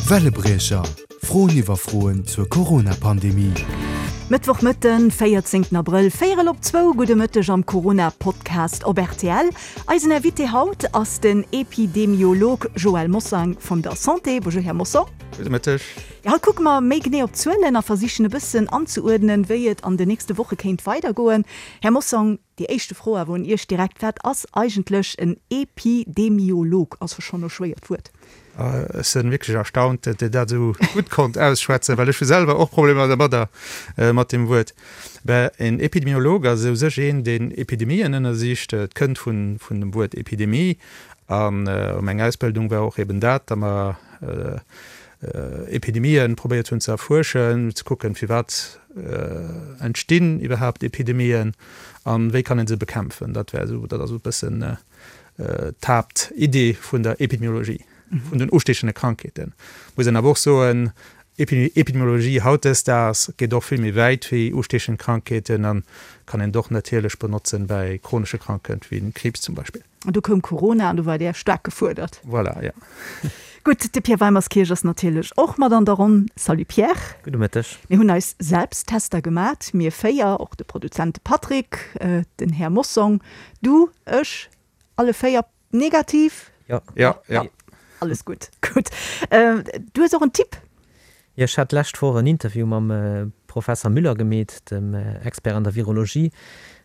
Wellebriecher, Froen iwwer Froen zur Corona-Pandemie. Mëttwochmëtten, 14 Abrëll, véierel op zwou, gudde Mëtteg am Corona-Podcast op rtl. Eisen Invité haut ass den Epidemiolog Joël Mossang vun der Santé. Bonjour Här Mossong. Gudde Mëtteg. Jo, haut kucke mer méi genee op d'Zuelen a versichen e bëssen anzeuerdnen, wéi et an den nächste Woche kéint weidergoen. Här Mossong, Déi éischte Fro awer un Iech direkt, Wat ass eigentlech en Epidemiolog? Ass jo schonn e schwéiert Wuert. Ech sinn wierklech erstaunt, datt Dir dat esou gutt konnt ausschwätzen, well ech hu selwer och Problemer dermadder, mat deem Wuert. Ben, en Epidemiolog ass u sech een, deen Epidemien ënnersicht. Et kënnt vun dem Wuert Epidemie. An meng Ausbildung war och eben dat, datt mer Epidemien probéiert hunn ze erfuerschen, ze kucken, firwat entstinn iwwerhaapt Epidemien an wéi kann een se bekämpfen. Dat wär esou, dat ass esou e bëssen d'Haaptidee vun der Epidemiologie, vun den ustiechende Krankheeten. Muss een awer och soen, Epidemiologie hautdesdaags geet och vill méi wäit wéi ustiechend Krankheeten an kann een och natierlech benotzen bäi chronesche Krankheeten wéi Kriibs zum Beispill. An du koum Corona an du war Där staark gefuerdert. Voilà, jo. Gutt, de Pierre Weimerskirch ass natierlech och mat an der Ronn. Salut Pierre. Gudde Mëtteg. Mir hunn eis Selbsttester gemat, mir 4, och de Produzent de Patrick, den Här Mossong, du, ech, alle 4 negativ? Jo. Jo, jo. Alles gutt, gutt. Du hues och en Tipp? Jo, ech hat d'lescht Woch en Interview mam Professer Müller gemeet, dem Expert an der Virologie,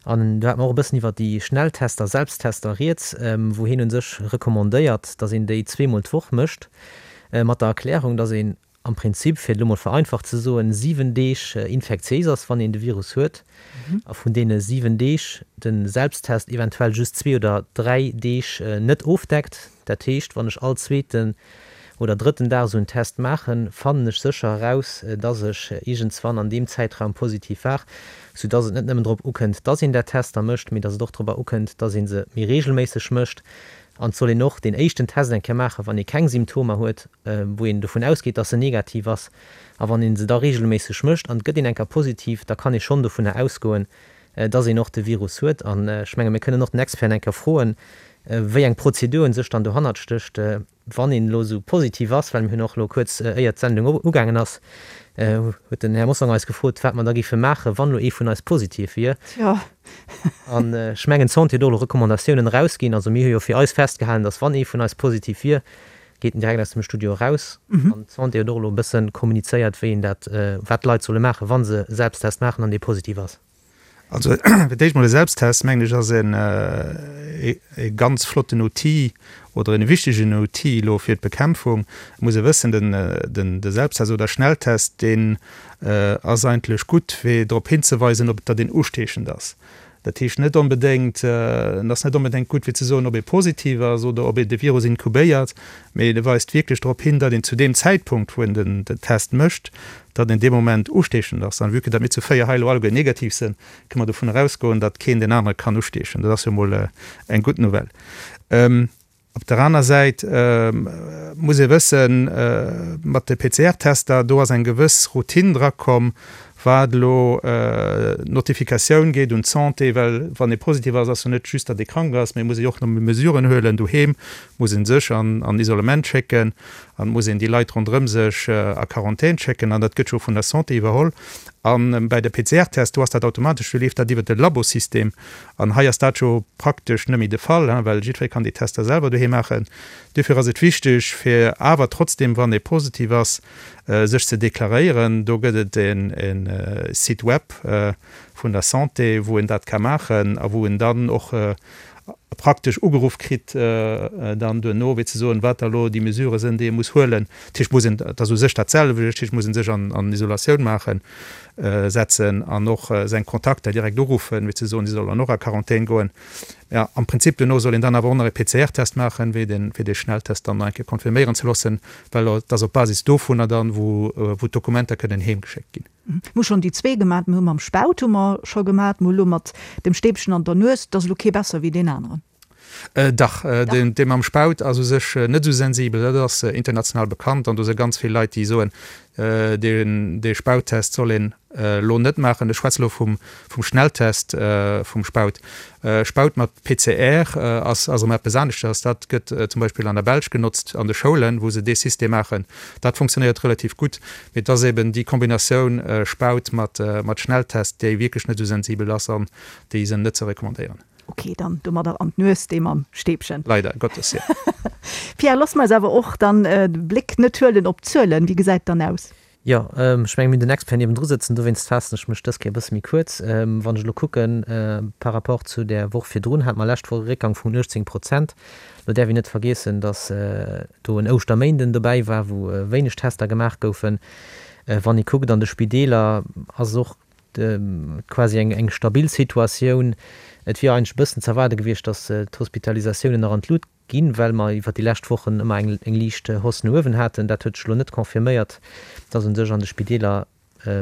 an do hate mer och e bëssen iwwer déi Schnelltester, Selbsttester rieds, wou hien u sech recommandéiert, datt een déi zweemol d'Woch mécht, mat der Erklärung, datt een am Prinzip, fir et elo mol vereinfacht ze soen, 7 Deeg infektiéis ass, wann een de Virus huet, a vun deene 7 Deeg de Selbsttest eventuell just zwee oder dräi Deeg net ofdeckt. Dat heescht, wann ech all zweeten oder drëtten Dag esou en Test maachen, fannen ech sécher eraus, dass ech iergendswann an deem Zäitraum positiv war, soudass et net nëmmen drop ukënnt, dass een där Tester mécht, mee dass et och dorobber ukënnt, dass ee se méi reegelméisseg mécht. An et soll een och deen éischten Test eng Kéier maachen, wann ee keng Symptomer huet, wou een dovun ausgeet, dass en negativ ass. A wann ee se da reegelméisseg mécht an et gëtt een eng Kéier positiv, da kann ee schonn dovunner ausgoen, dass een och de Virus huet. An ech menge mir kënnen och den Experten eng Kéier froen, wéi eng Prozedur u sech dann dohannert stécht, wann een elo esou positiv ass, well mir hunn och elo kuerz éier d'Sendung ugaangen ass, huet den Här Mossong eis gefrot, wat mer da géife maachen, wann elo ee vun eis positiv wier. Tjo. An ech mengen, d'Santé huet och elo Recommandatiounen erausginn. Also mir hu jo fir eis festgehalen, dass wann ee vun eis positiv wier, geet en direkt aus dem Studio eraus. An d'Santé huet och elo e bësse kommunizéiert, wéi een dat, wat d'Leit solle maachen, wa se Selbsttest maachen an dee positiv ass. Also fir d'éischt mol e Selbsttest, mengen ech, ass en e ganz flotten Outil oder en wichtegen Outil elo fir d'Bekämpfung. Et muss ee wëssen, den de Selbsttest oder Schnelltest, deen ass eigentlech gutt, fir drop hinzeweisen, ob datt een ustiechend ass. Dat heescht net onbedéngt, en ass net onbedéngt gutt fir ze soen, ob ee positiv ass oder ob ee de Virus inkubéiert, mee e weist wierklech drop hin, datt een zu deem Zäitpunkt, wou een den Test mécht, datt een dee Moment ustiechend ass. An vue que datt mir zu 4 hei elo alleguer negativ sinn, kënne mer dovun erausgoen, datt keen deen anere kann ustiechen. Dat ass jo emol eng gutt Nouvelle. Op der aner Säit muss ee wëssen, mat de PCR-Tester, do ass eng gewëss Routine drakomm, wat elo d'Notifikatioun geet un d'Santé, well wann ee positiv ass, ass jo net just, datt ee krank ass, mee muss ee jo och nach Mesuren huelen doheem, muss ee sech an Isolement schécken an muss een déi Leit ronderëm sech a Quarantän schécken an dat gëtt jo vun der Santé iwwerholl. A bäi de PCR-Test, do ass dat automatesch, do leeft dat iwwert de Labosystem An hei ass dat jo praktesch net méi de Fall, well jiddweree kann déi Tester selwer doheem maachen. Duerfir ass et wichteg, fir awer trotzdem, wann ee positiv ass, sech ze deklaréieren. Do gëtt et e Site web vun der Santé, wou een dat ka maachen a wou en dann och praktesch ugeruff kritt dann duerno, fir ze soen, wat da elo déi Mesurë sinn, déi ee muss huelen. Dat heescht, muss een, dat ass u sech dat selwecht, dat heescht, muss ee sech an Isolatioun maachen. Setzen an och seng Kontakter direkt uruffen, fir ze soen, si sollen och a Quarantän goen. Ja, am Prinzip duerno soll een dann awer och nach e PCR-Test maachen, wéi den, fir dee Schnelltest dann nach eng Kéier confirméieren ze loossen, well et ass op Basis dovunner dann, wou, wou d'Dokumenter kënnen heemgeschéckt ginn. Mir hu schonn déi zwee gemat. Mir hu mam Spaut hu mer scho gemat, mir hu lo mat dem Stäbchen an der Nues. Et ass elo kee besser wéi deen aneren. Dach, dee mam Spaut ass u sech net esou sensibel. Dat ass international bekannt an do si ganz vill Leit, déi soen, dee Spauttest soll een elo net maachen. Ech schwätze elo vum Schnelltest vum Spaut. Spaut mat PCR ass erëm eppes aneschters. Dat gëtt zum Beispill an der Belsch genotzt an de Schoulen, wou se dee System maachen. Dat funktionéiert relativ gutt. Mee et ass eben déi Kombinatioun Spaut mat Schnelltest, déi wierklech net esou sensibel ass an déi se net ze recommandéieren. Ok, dann domadder an d'Nues, dee mam Stäbchen. Leider Gottes, jo. Pierre, loosse mer eis awer och dann de Bléck net huelen op d'Zuelen. Wéi gesäit et dann aus? Jo, ech mengen, mir hunn den Expert niewendru sëtzen, dowéinst faassen ech mech dës Kéier e bësse méi kuerz. Wann ech elo kucken, par rapport zu där Woch virdrun hate mer lescht Woch e Réckgang vun 18 Prozent. Elo däerf een net vergiessen, datt do en Ouschterméinden dobäi war, wou wéineg Tester gemaach goufen. Wann ee kuckt an de Spideeler, ass et och quasi eng stabil Situatioun. Et wier eigentlech e bëssen z'erwaarde gewiescht, datt d'Hospitalisatiounen nach an d'Lut ginn, well mer iwwer déi lescht Wochen ëmmer eng liicht Hausse no uewen haten. Dat huet sech elo net confirméiert, datt u sech an de Spideeler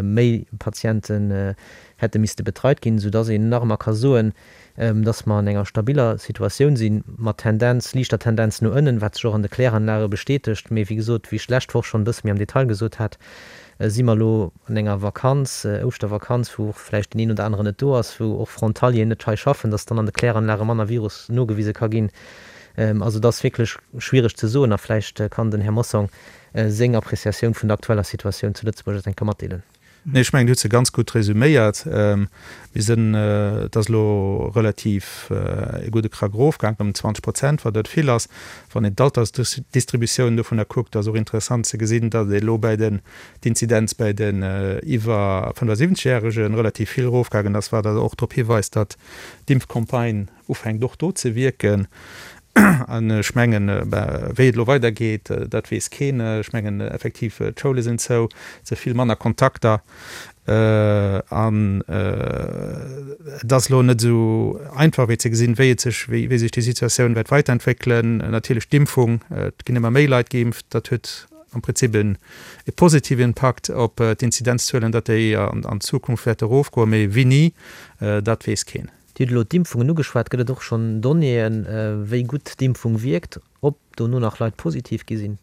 méi Patienten hätte misste betreit ginn, soudatt een nach ëmmer ka soen, datt mer an enger stabiller Situatioun sinn, mat Tendenz, liichter Tendenz no ënnen, wat sech och an de Kläranlage bestätegt. Mee wéi gesot, wéi ech d'lescht Woch schonn e bësse méi am Detail gesot hat, si mer elo an enger Vakanz, Ouschtervakanz, wou och vläicht deen een oder aneren net do ass, wou och Frontalieren net hei schaffen, datt dann an de Kläranlage manner Virus nogewise ka ginn. Also et ass wierklech schwiereg ze soen a vläicht kann den Här Mossong seng Appreciatioun vun der aktueller Situatioun zu Lëtzebuerg eis eng Kéier matdeelen. Nee, ech mengen, Dir hutt se ganz gutt resüméiert. Mir sinn, et ass elo relativ e gudde Krack erofgaangen, ëm 20 Prozent, wat net vill ass. Wann een d'Altersdistributioun dovunner kuckt, ass och interessant ze gesinn, datt elo bäi den, d'Inzidenz bäi den iwwer 75 Järege relativ vill erofgaangen ass, wat also och drop hiweist, datt d'Impfcampagne ufänkt och do ze wierken. An ech mengen, wéi et elo weidergeet, dat weess keen. Ech mengen effektiv, d'Schoule sinn zou, et si vill manner Kontakter an et ass elo net esou einfach wéi ze gesinn, wéi et sech, wéi sech déi Situatioun wäert weiterentwéckelen. Natierlech d'Impfung, et ginn ëmmer méi Leit geimpft, dat huet am Prinzip e positive Impakt op d'Inzidenzzuelen, datt déi an Zukunft wäerte erofgoen, mee wéini, dat weess keen. Dir hutt elo d'Impfungen ugeschwat. Gëtt et och schonn Donnéeën, wéi gutt d'Impfung wierkt, ob dono nach Leit positiv gi sinn?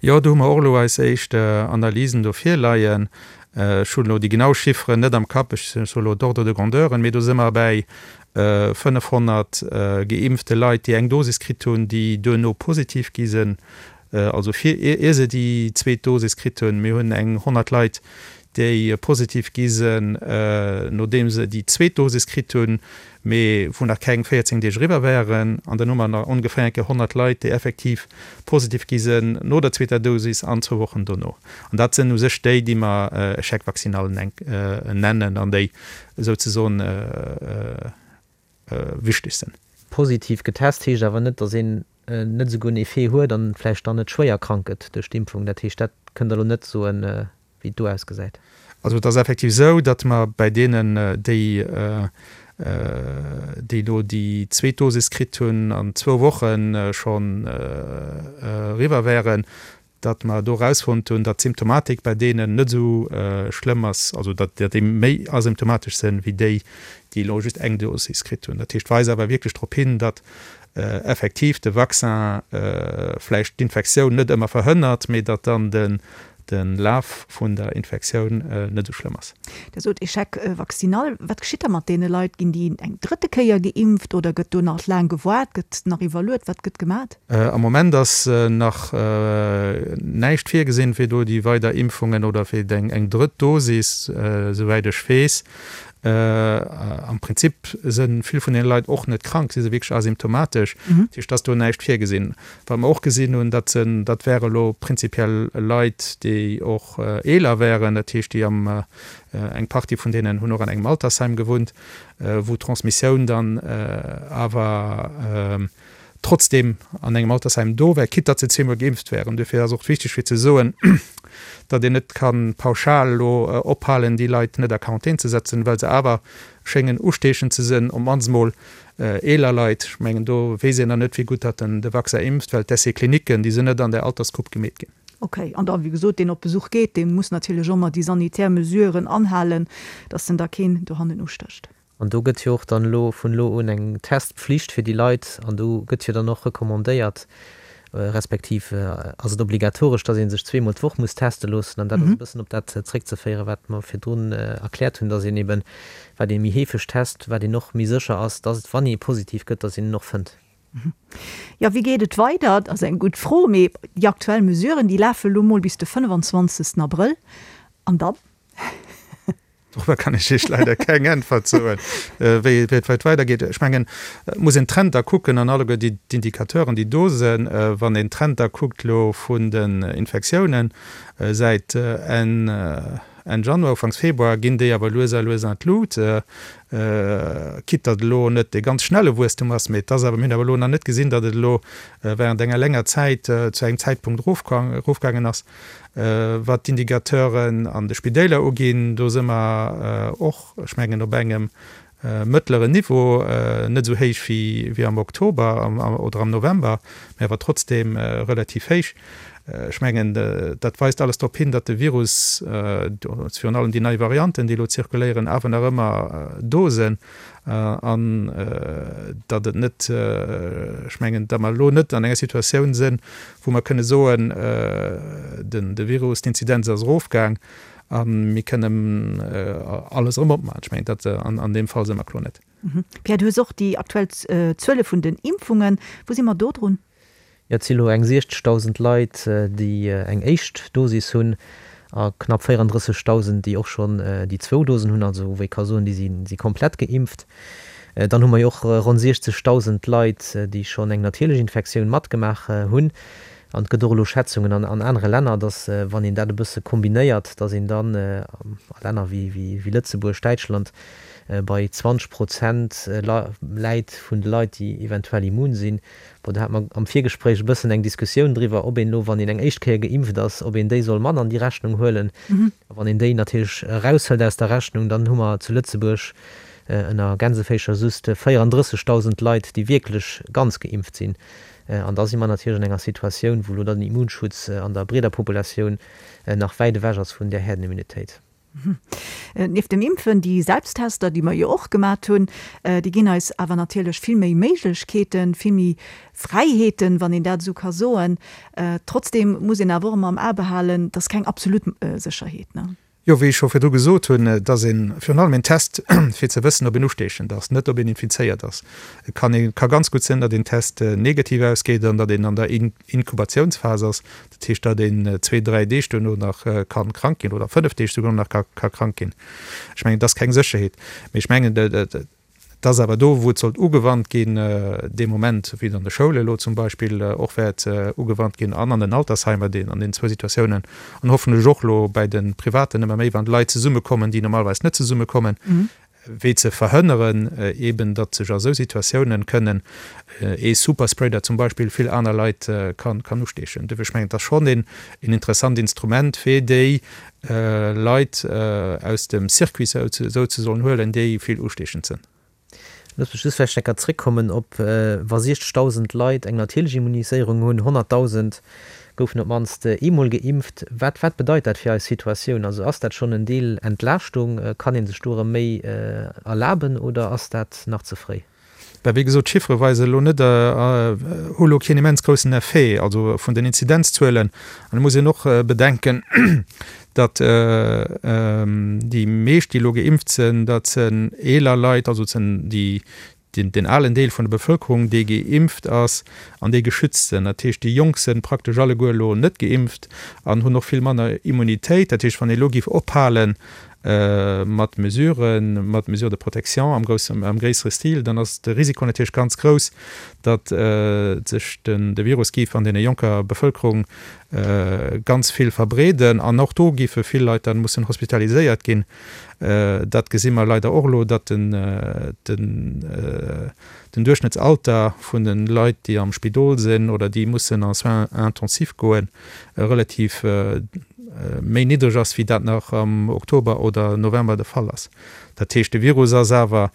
Jo, do hu mer och elo eis éischt Analysen do virleien. Ech hunn elo déi genau Chifferen net am Kapp, ech soe elo d'Ordre de grandeuren, mee do si mer bäi 500 geimpfte Leit, déi eng Dosis kritt hunn, déi duerno positiv gi sinn, also fir ier se déi zweet Dosis kritt hunn. Mir hunn eng 100 Leit, déi positiv gi sinn, nodeem se déi zweet Dosis kritt hunn, mee wou nach keng 14 Deeg eriwwer waren. An dann hu mer nach ongeféier eng Kéier 100 Leit, déi effektiv positiv gi sinn no der zweeter Dosis an zwou Wochen dono. An dat sinn u sech déi, déi mer Échec vaccinal nennen an déi souzesoen wichteg sinn. Positiv getest heescht awer net, datt een net esouguer en Effet huet an vläicht dann net schwéier krank gëtt duerch d'Impfung. Dat heescht, dat kënnt Der elo net soen, wéi et do ausgesäit. Also et ass effektiv esou, datt mer bäi deenen, déi déi elo déi zweet Dosis kritt hunn an zwou Woche schonn eriwwer wären, datt mer do erausfonnt hunn, datt d'Symptomatik bäi deenen net esou schlëmm ass, also datt déi méi asymptomatesch sinn, wéi déi, déi elo just eng Dosis kritt hunn. Dat heescht, weist awer wierklech drop hin, datt effektiv de Vaccin vläicht d'Infektioun net ëmmer verhënnert, mee datt dann de Laf vun der Infektioun net esou schlëmm ass. Der sot Échec vaccinal. Wat geschitt da mat deene Leit? Ginn déi eng drëtte Kéier geimpft oder gëtt do nach laang gewaart, gëtt nach iwwerluet? Wat gëtt gemat? Am Moment ass nach näischt virgesinn, fir do déi weider Impfungen oder fir eng drëtt Dosis, esouwäit ech weess. Am Prinzip si vill vun deene Leit och net krank, si si wierklech asymptomatesch, dat heescht, et ass do näischt virgesinn. Wat mer och gesinn hunn, dat sinn, dat wäre elo prinzipiell Leit, déi och eeler wären, dat heescht, déi am, eng Partie vun deenen hunn och an engem Altersheim gewunnt, wou d'Transmissioun dann awer trotzdem an engem Altersheim do wär, quitte datt se zweemol geimpft wären. Duerfir ass och wichteg fir ze soen, datt een net ka pauschal elo ophalen, déi Leit net a Quarantän ze setzen, well se awer schéngen usteechend ze sinn, op d'mannst emol eeler Leit. Ech mengen, do weess een nach net, wéi gutt datt den de Vaccin impft, well d'Essais cliniquen, déi sinn net an där Altersgrupp gemeet ginn. Okay. An da, wéi gesot, deen op Besuch geet, dee muss natierlech ëmmer déi sanitär Mesuren anhalen, datt en da keen dohannen ustécht. An do gëtt jo och dann elo vun elo un eng Testpflicht fir déi Leit an do gëtt jo dann och recommandéiert, respektiv ass et obligatoresch, dass ee sech zweemol d'Woch muss teste loossen. An dat ass e bëssen op dat zréckzeféieren, wat mer virdrun erkläert hunn, dass een eben, wat ee méi heefeg test, wat een och méi sécher ass, dass, wann ee positiv gëtt, dass een en och fënnt. Jo, wéi geet et weider? Dat ass eng gutt Fro. Mee déi aktuell Mesuren, déi lafe lo mol bis de 25. Abrëll. An dann? Dorobber kann ech Iech leider keng Äntwert soen, wéi et weidergeet. Ech mengen, et muss een d'Trender kucken an alleguer déi d'Indicateuren, déi do sinn. Wann een d'Trender kuckt elo vun den Infektiounen säit Enn Enn Januar, Ufanks Februar, ginn déi awer lues a lues an d'Lut. Quitte datt elo net dee ganz schnelle Wuesstum ass, mee et ass awer, mir hunn awer elo nach net gesinn, datt et elo während enger länger Zäit zu engem Zäitpunkt erofgaangen ass. Wat d'Indicateuren an de Spidéiler uginn, do si mer och, ech mengen, op engem mëttleren Niveau, net esou héich wéi am Oktober oder am November, mä awer trotzdeem relativ héich. Ech mengen, dat weist alles drop hin, datt de Virus, virun allem déi nei Varianten, déi elo zirkuléieren, awer nach ëmmer do sinn an datt et net, ech mengen, datt mer elo net an enger Situatioun sinn, wou mer kënne soen, de Virus, d'Inzidenz ass erofgaang a mir kënnen alles erëm opmaachen. Ech mengen, dat an deem Fall si mer kloer net. Pierre, du hues och déi aktuell Zuele vun den Impfungen. Wou si mer do drun? Jo, et si lo eng 60.000 Leit, déi eng éischt Dosis hunn a knapp 34.000, déi och schonn déi zwou Dosen hunn, also wou ee ka soen, déi si komplett geimpft. Dann hu mer jo och ronn 60.000 Leit, déi schonn eng natierlech Infektioun matgemaach hunn. An et gëtt och elo Schätzungen an anere Länner, datt wann een dat e bësse kombinéiert, datt een dann a Länner wéi Lëtzebuerg, Däitschland bei 20 Prozent läit vun de Leit, déi eventuell immun sinn. Bon, do hate mer am Virgespréich e bëssen eng Diskussioun driwwer, ob een elo, wann een eng éischt Kéier geimpft ass, ob een déi soll mat an déi Rechnung huelen. A wann een déi natierlech eraushëlt aus der Rechnung, dann hu mer zu Lëtzebuerg ënner Gänseféischer just 34.000 Leit, déi wierklech ganz geimpft sinn. An da si mer natierlech an enger Situatioun, wou elo dann den Immunschutz an der breeder Populatioun nach wäit ewech ass vun där Herdenimmunitéit. Nieft dem Impfen, déi Selbsttester, déi mer jo och gemat hunn, déi ginn eis awer natierlech vill méi Méiglechkeeten, vill méi Fräiheeten, wann een dat esou ka soen. Trotzdeem muss een awer och ëmmer am A behalen, et ass keng absolut Sécherheet, ne? Jo, wéi ech scho virdru gesot hunn, et ass ee virun allem een Test, fir ze wëssen, ob een ustiechend ass, net ob een infizéiert ass. Et kann ee ka ganz gutt sinn, datt een Test negativ ausgeet an datt een an der Inkubatiounsphas ass, dat heescht, datt een zwee, dräi Deeg duerno nach ka krank ginn oder fënnef Deeg souguer nach ka krank ginn. Ech mengen, et ass keng Sécherheet, mee ech mengen, et ass awer do, wou et sollt ugewannt ginn, dee Moment, wéi et an de Schoule elo zum Beispill och wäert ugewannt ginn an an den Altersheimer, deen an deenen zwou Situatiounen an hoffentlech och elo bäi de Privaten ëmmer méi, wann Leit zesummekommen, déi normalerweis net zesummekommen, wéi ze verhënneren eben, datt sech a sou Situatiounen kënnen ee Superspreader zum Beispill vill aner Leit kann usteechen. Duerfir, ech mengen, et ass schonn een interessant Instrument, fir déi Leit aus dem Circuit souzesoen huelen, déi vill usteechend sënn. Looss mech just vläicht eng Kéier zréckkommen op, wa 60.000 Leit eng natierlech Immuniséierung hunn, 100.000 goufen op d'mannst eemol geimpft. Wat, wat bedeit dat fir eis Situatioun? Also ass dat schonn en Deel Entlaaschtung? Kann ee sech do erëm méi erlaben oder ass dat nach ze fréi? Ben, wéi gesot, d'Chiffere weisen elo net, hu elo keen immens groussen Effet, also vun den Inzidenzzuelen. An et muss een och bedenken, datt déi meescht, déi elo geimpft sinn, dat sinn eeler Leit, also et sinn déi, deen alen Deel vun der Bevëlkerung, dee geimpft ass an déi geschützt sinn. Dat heescht, déi Jonk sinn praktesch alleguer elo net geimpft an hunn och vill manner Immunitéit. Dat heescht, wann ee elo géif ophale mat Mesuren, mat Mesures de protection am groussen, am gréissere Stil, dann ass de Risiko natierlech ganz grouss, datt sech den, de Virus géif an deene jonker Bevëlkerung ganz vill verbreeden an och do géife vill Leit dann mussen hospitaliséiert ginn. Dat gesi mer leider och elo, datt den, den, den Duerchschnëttsalter vun de Leit, déi am Spidol sinn oder déi mussen en Soins intensifs goen, relativ méi niddreg ass, wéi dat nach am Oktober oder November de Fall ass. Dat heescht, de Virus ass awer.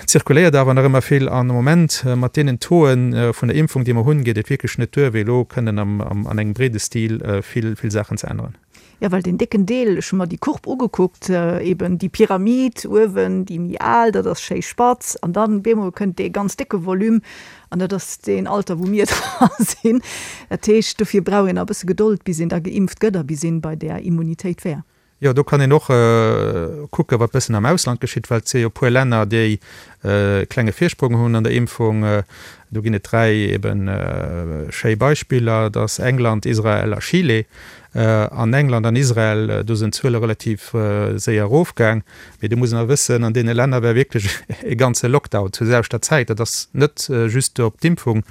Zirkuléiert awer nach ëmmer vill an am Moment mat deenen Tauxë vun der Impfung, déi mer hunn, geet et wierklech net duer, wéi elo kënnen an engem breede Stil vill, vill Saachen ze änneren. Jo, well deen décken Deel, ech hu mer déi Courbe ugekuckt, eben déi Pyramid uewen, déi méi al, dat ass schéi spatz, an dann bemol kënnt dee ganz décke Volume an dat ass deen Alter, wou mir dra sinn. Dat heescht, dofir brauch een nach e bësse Gedold, bis een da geimpft gëtt a bis een bei där Immunitéit wär. Jo, do kann een och kucken, wat bëssen am Ausland geschitt, well et si jo e puer Länner, déi e klenge Virsprong hunn an der Impfung. Do ginn et 3 eben schéi Beispiller, dat ass England, Israel a Chile. An England an Israel, do sinn d'Zuele relativ séier erofgaang. Mee do muss een awer wëssen, an deene Länner war wierklech e ganze Lockdown zur selwechter Zäit. Dat ass net just op d'Impfung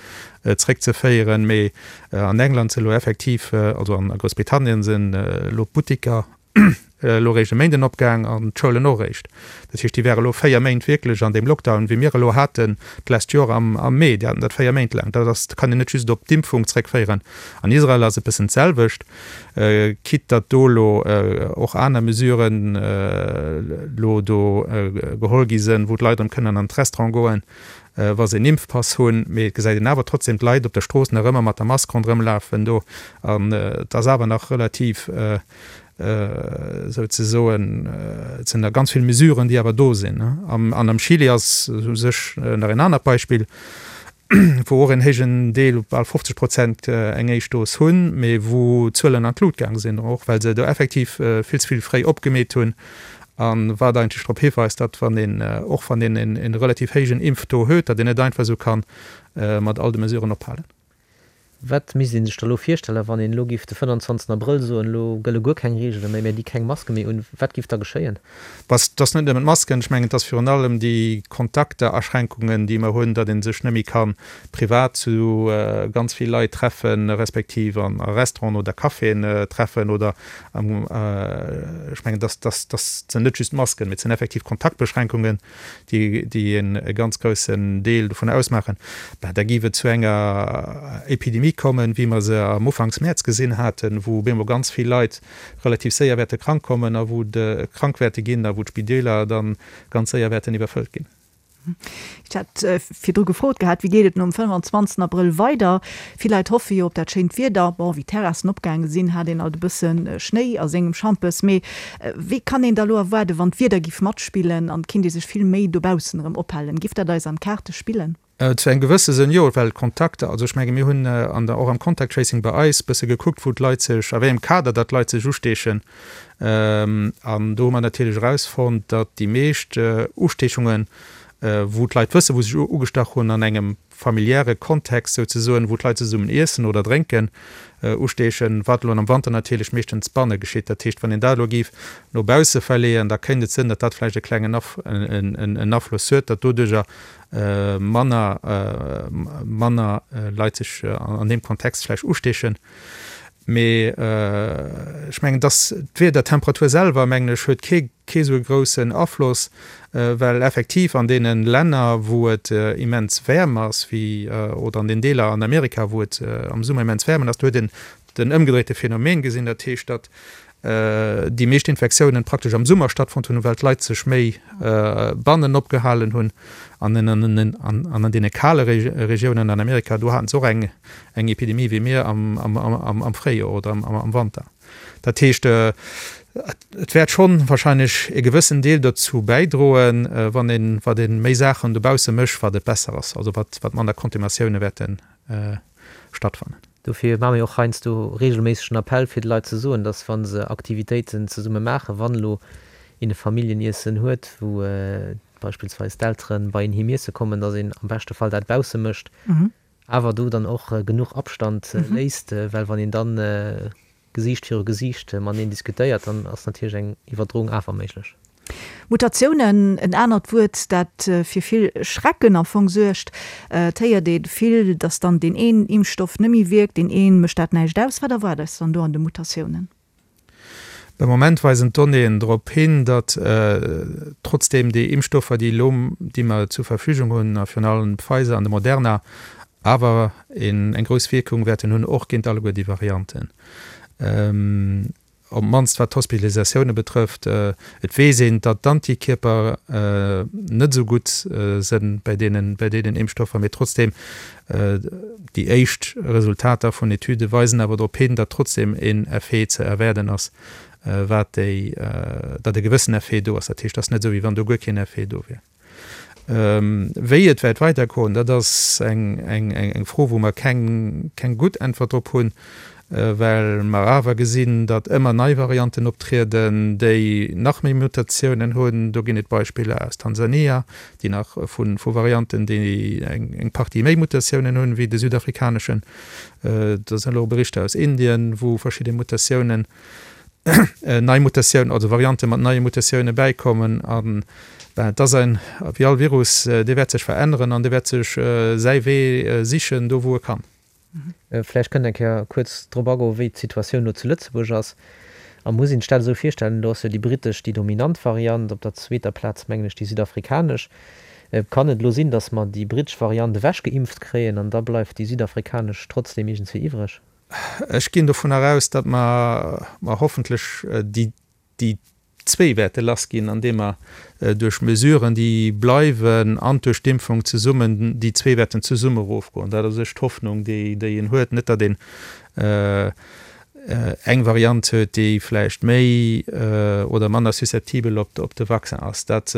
zréckzeféieren, mee An England sinn elo effektiv, also an Groussbritannien sinn elo d'Buttiker elo eréischt e Méinden opgaang an d'Schoulen och eréischt. Dat heescht, déi ware elo 4 Méint wierklech an deem Lockdown, wéi mir elo haten d'lescht Joer am Mee. Déi haten dat 4 Méint laang. Dat ass, kann een net just op d'Impfung zréckféieren. An Israel ass et bëssen d'selwecht, quitte datt do elo och aner Mesuren elo do geholl gi sinn, wou d'Leit erëm kënnen an d'Restaurant goen. wa se en Impfpass hunn, mee et gesäit een awer trotzdem d'Leit op der Strooss nach ëmmer mat der Mask ronderëm lafen do an et ass awer nach relativ souzesoen, et sinn nach ganz vill Mesuren, déi awer do sinn. An am Chile ass u sech nach en anert Beispill, wou och en héijen Deel, bal 50 Prozent eng éischt Dos hunn, mee wou d'Zuelen an d'Lut gaang sinn, och well se do effektiv vill ze vill fréi opgemeet hunn A wat eigentlech drop hiweist, datt wann een, och wann een e relativ héijen Impftaux huet, datt een net einfach esou ka mat all de Mesuren ophalen. Wat misst ee sech da elo virstellen, wann een elo giff de 25 Abrëll soen, elo gëlle guer keng Reegele méi, mir di keng Maske méi un, wat giff da geschéien? Et ass net nëmmen d'Masken, ech mengen et ass virun allem déi Kontakteraschränkungen, déi mer hunn, datt ee sech net méi ka privat zu ganz vill Leit treffen, respektiv a Restauranten oder Caféen treffen oder Ech mengen, dass dass sinn net just d'Masken, mee et sinn effektiv Kontaktbeschränkungen, déi déi e ganz groussen Deel dovun ausmaachen. Ben, da géif et zu enger Epidemie kommen, wéi mer se am Ufanks Mäerz gesinn haten, wou op eemol ganz vill Leit relativ séier wäerte krank kommen a wou de krank wäerte ginn a wou d'Spideeler dann ganz séier wäerten iwwerfëllt ginn. Ech hat virdru gefrot gehat, wéi geet et nom 25 Abrëll weider? Vill Leit hoffe jo op dat schéint Wieder. Bon, wéi d'Terrassen opgaange sinn, hat een alt e bësse Schnéi a sengem Schampes. Mee wéi kann een da lo erwaarden, wann d'Wieder giff matspillen an et kinnt ee sech vill méi dobaussen erëm ophalen? Giff dat eis an d'Kaarte spillen? Zu engem gewësse Sënn jo, well d'Kontakter, also ech menge mir hunn an der, och am Contact Tracing bei eis bësse gekuckt, wou d'Leit sech, a wéi engem Kader datt d'Leit sech usteechen. An do hu mer natierlech erausfonnt, datt déi meescht Usteechungen, wou d'Leit wëssen, wou se sech ugestach hunn, an engem familiäre Kontext souzesoen, wou d'Leit zesummen iessen oder drénken, usteechen, wat elo am Wanter natierlech meeschtens banne geschitt. Dat heescht, wann een dat elo géif no bausse verleeën, da kéint et sënn, datt dat vläicht e klengen Afloss huet, datt doduerjer manner manner Leit sech an deem Kontext vläicht usteechen. Mee ech mengen, dass d'Wiedertemperatur selwer, mengen ech, huet kee kee sou e groussen Afloss, well effektiv an deene Länner, wou et immens waarm ass, wéi oder an den Deeler an Amerika, wou et am Summer immens waarm ass, do huet een den ëmgedréite Phänomen gesinn, dat heescht, datt déi meescht Infektiounen praktesch am Summer stattfonnt hunn, well d'Leit sech méi bannen opgehalen hunn. An an deene kale Regiounen an Amerika, do haten se och eng Epidemie wéi mir am Fréijoer oder am Wanter. Dat heescht, et wäert schonn wahrscheinlech e gewëssen Deel dozou bäidroen, wann een, wat ee méi Saachen dobausse mécht, wat et besser ass, also wat manner Contaminatioune wäerte stattfannen. Dofir maache mir och heiansdo reegelméisseg den Appell, fir de Leit ze soen, dass wa se Aktivitéiten zesumme maachen, wann elo een e Familljeniessen huet, wou beispillsweis d'Eltere bei een heem iesse kommen, dass een am beschte Fall dat bausse mécht, awer do dann och genuch Abstand léisst, well wann een dann Gesiicht viru Gesiicht mateneen diskutéiert, dann ass natierlech eng Iwwerdroung awer méiglech. Mutatiounen, en anert Wuert, dat fir vill Schrecken am Fong suergt. Et héiert ee vill, datt dann deen een Impfstoff net méi wierkt, deen ee mécht dat näischt aus. Wat erwaart eis dann do an de Mutatiounen? De Moment weisen d'Donnéeën drop hin, datt trotzdeem déi Impfstoffer, déi elo, déi mer zur Verfügung hunn, a virun allem Pfizer an de Moderna, awer eng grouss Wierkung wäerten hunn, och géint alleguer déi Varianten. Op d'mannst wat d'Hospitalisatioune betrëfft. Et weess een, datt d'Antikierper net esou gutt sënn bei deenen, bei deenen Impfstoffer, mee trotzdeem, déi éischt Resultater vun Etüde weisen awer drop hin, datt trotzdeem een Effet ze erwaarden ass, wat déi, datt e gewëssen Effet do ass. Dat heescht, et ass net esou, wéi wann do guer keen Effet do wier. Wéi et wäert weidergoen, dat ass eng Fro, wou mer keng gutt Äntwert drop hunn, well mer awer gesinn, datt ëmmer nei Varianten optrieden, déi nach méi Mutatiounen hunn. Do ginn et Beispiller aus Tansania, déi nach vu Varianten, déi eng Partie méi Mutatiounen hunn, wéi de südafrikaneschen. Do sinn elo Berichter aus Indien, wou verschidde Mutatiounen nei Mutatiounen, also Variante mat neie Mutatioune bäikommen. An ben, et ass ein, wéi all Virus, dee wäert sech veränneren an dee wäert sech säi Wee sichen, do wou e kann. Vläicht kënnt eng Kéier kuerz drop agoen, wéi d'Situatioun elo zu Lëtzebuerg ass. A muss een sech dat esou virstellen, elo ass jo déi brittesch déi dominant Variant, op der zweeter Plaz mengen ech déi südafrikanesch. Kann et elo sinn, datt mer déi brittesch Variant ewechgeimpft kréien an da bleift déi südafrikanesch trotzdem iergendswéi iwwreg? Ech ginn dovunner aus, datt mer hoffentlech déi zwéi wäerte lassginn, andeem mer duerch Mesuren, déi bleiwen, an duerch d'Impfung zesummen, déi zwee wäerten zesumme erofgoen. Dat ass u sech d'Hoffnung, déi een huet. Net, datt een eng Variant huet, déi vläicht méi oder manner susceptibel op de Vaccin ass. Dat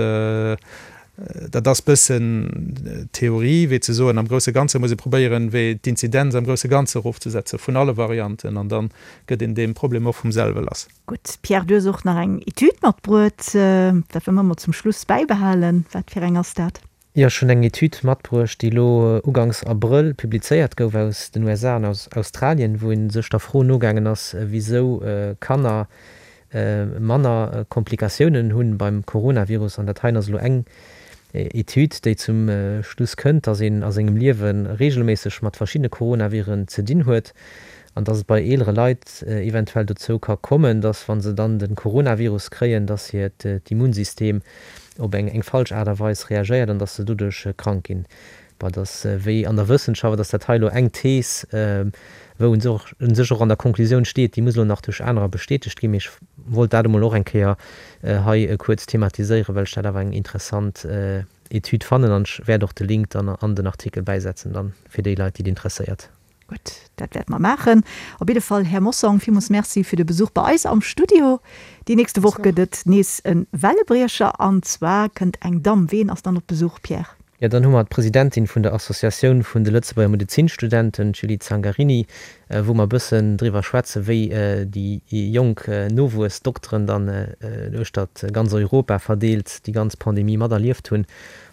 Dat ass bëssen Theorie, wéi ze soen, am grousse Ganze muss ee probéieren, wéi d'Inzidenz am grousse Ganze erofzesetze vun alle Varianten, an da gëtt een deem Problem och vum selwe lass. Gutt, Pierre, du hues och nach eng Etüd matbruet. Dat wëlle mer mol zum Schluss bäibehalen. Wat fir eng ass dat? Jo, ech hunn eng Etüd matbruecht, déi elo uganks Abrëll publizéiert gouf aus den USA an aus Australien, wou ee sech der Fro nogaangen ass, wisou Kanner manner Komplikatiounen hunn beim Coronavirus. An dat heien ass elo eng Etüd, déi zum Schluss kënnt, dass een a sengem Liewe reegelméisseg mat verschiddene Coronaviren ze dinn huet an dass et bei eelere Leit eventuell dozou ka kommen, dass wa se dann de Coronavirus kréien, dass hiert Immunsystem op eng falsch Aart a Weis reagéiert an dass se doduerch krank ginn. Bon, et ass wéi an der Wëssenschaft, et ass dat hei elo eng Thees, wou un sech och an der Konklusioun steet, déi muss elo nach duerch anerer bestätegt ginn, mee ech wollt dat emol och eng Kéier hei kuerz thematiséieren, well ech dat awer eng interessant Etüd fannen an ech wäert och de Link dann an den Artikel bäisetzen dann fir déi Leit, déi et interesséiert. Gutt, dat wäerte mer maachen. Op jidde Fall, Här Mossong, villmools Merci fir de Besuch bei eis am Studio. Déi nächste Woch gëtt et nees e Wellebriecher an zwar kënnt eng Damm. Ween ass dann op Besuch, Pierre? Jo, dann hu mer d'Presidentin vun der Associatioun vun de Lëtzebuerger Medezinstudenten, d'Julie Zangarini, wou mer e bëssen driwwer schwätzen, wéi déi jonk Nowuessdokteren dann uechtert ganz Europa verdeelt déi ganz Pandemie materlieft hunn,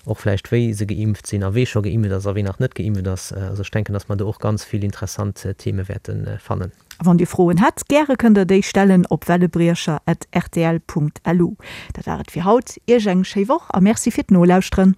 och vläicht wéi se geimpft sinn a wee scho geimpft ass a wee nach net geimpft ass. Also ech denken, dass mer do och ganz vill interessant Theme wäerte fannen. A wann Dir Froen hätt, gäre kënnt der déi stellen op wellebriecher at rtl Punkt lu. Dat war et fir haut. Iech eng schéi Woch a Merci fir d'Nolauschteren.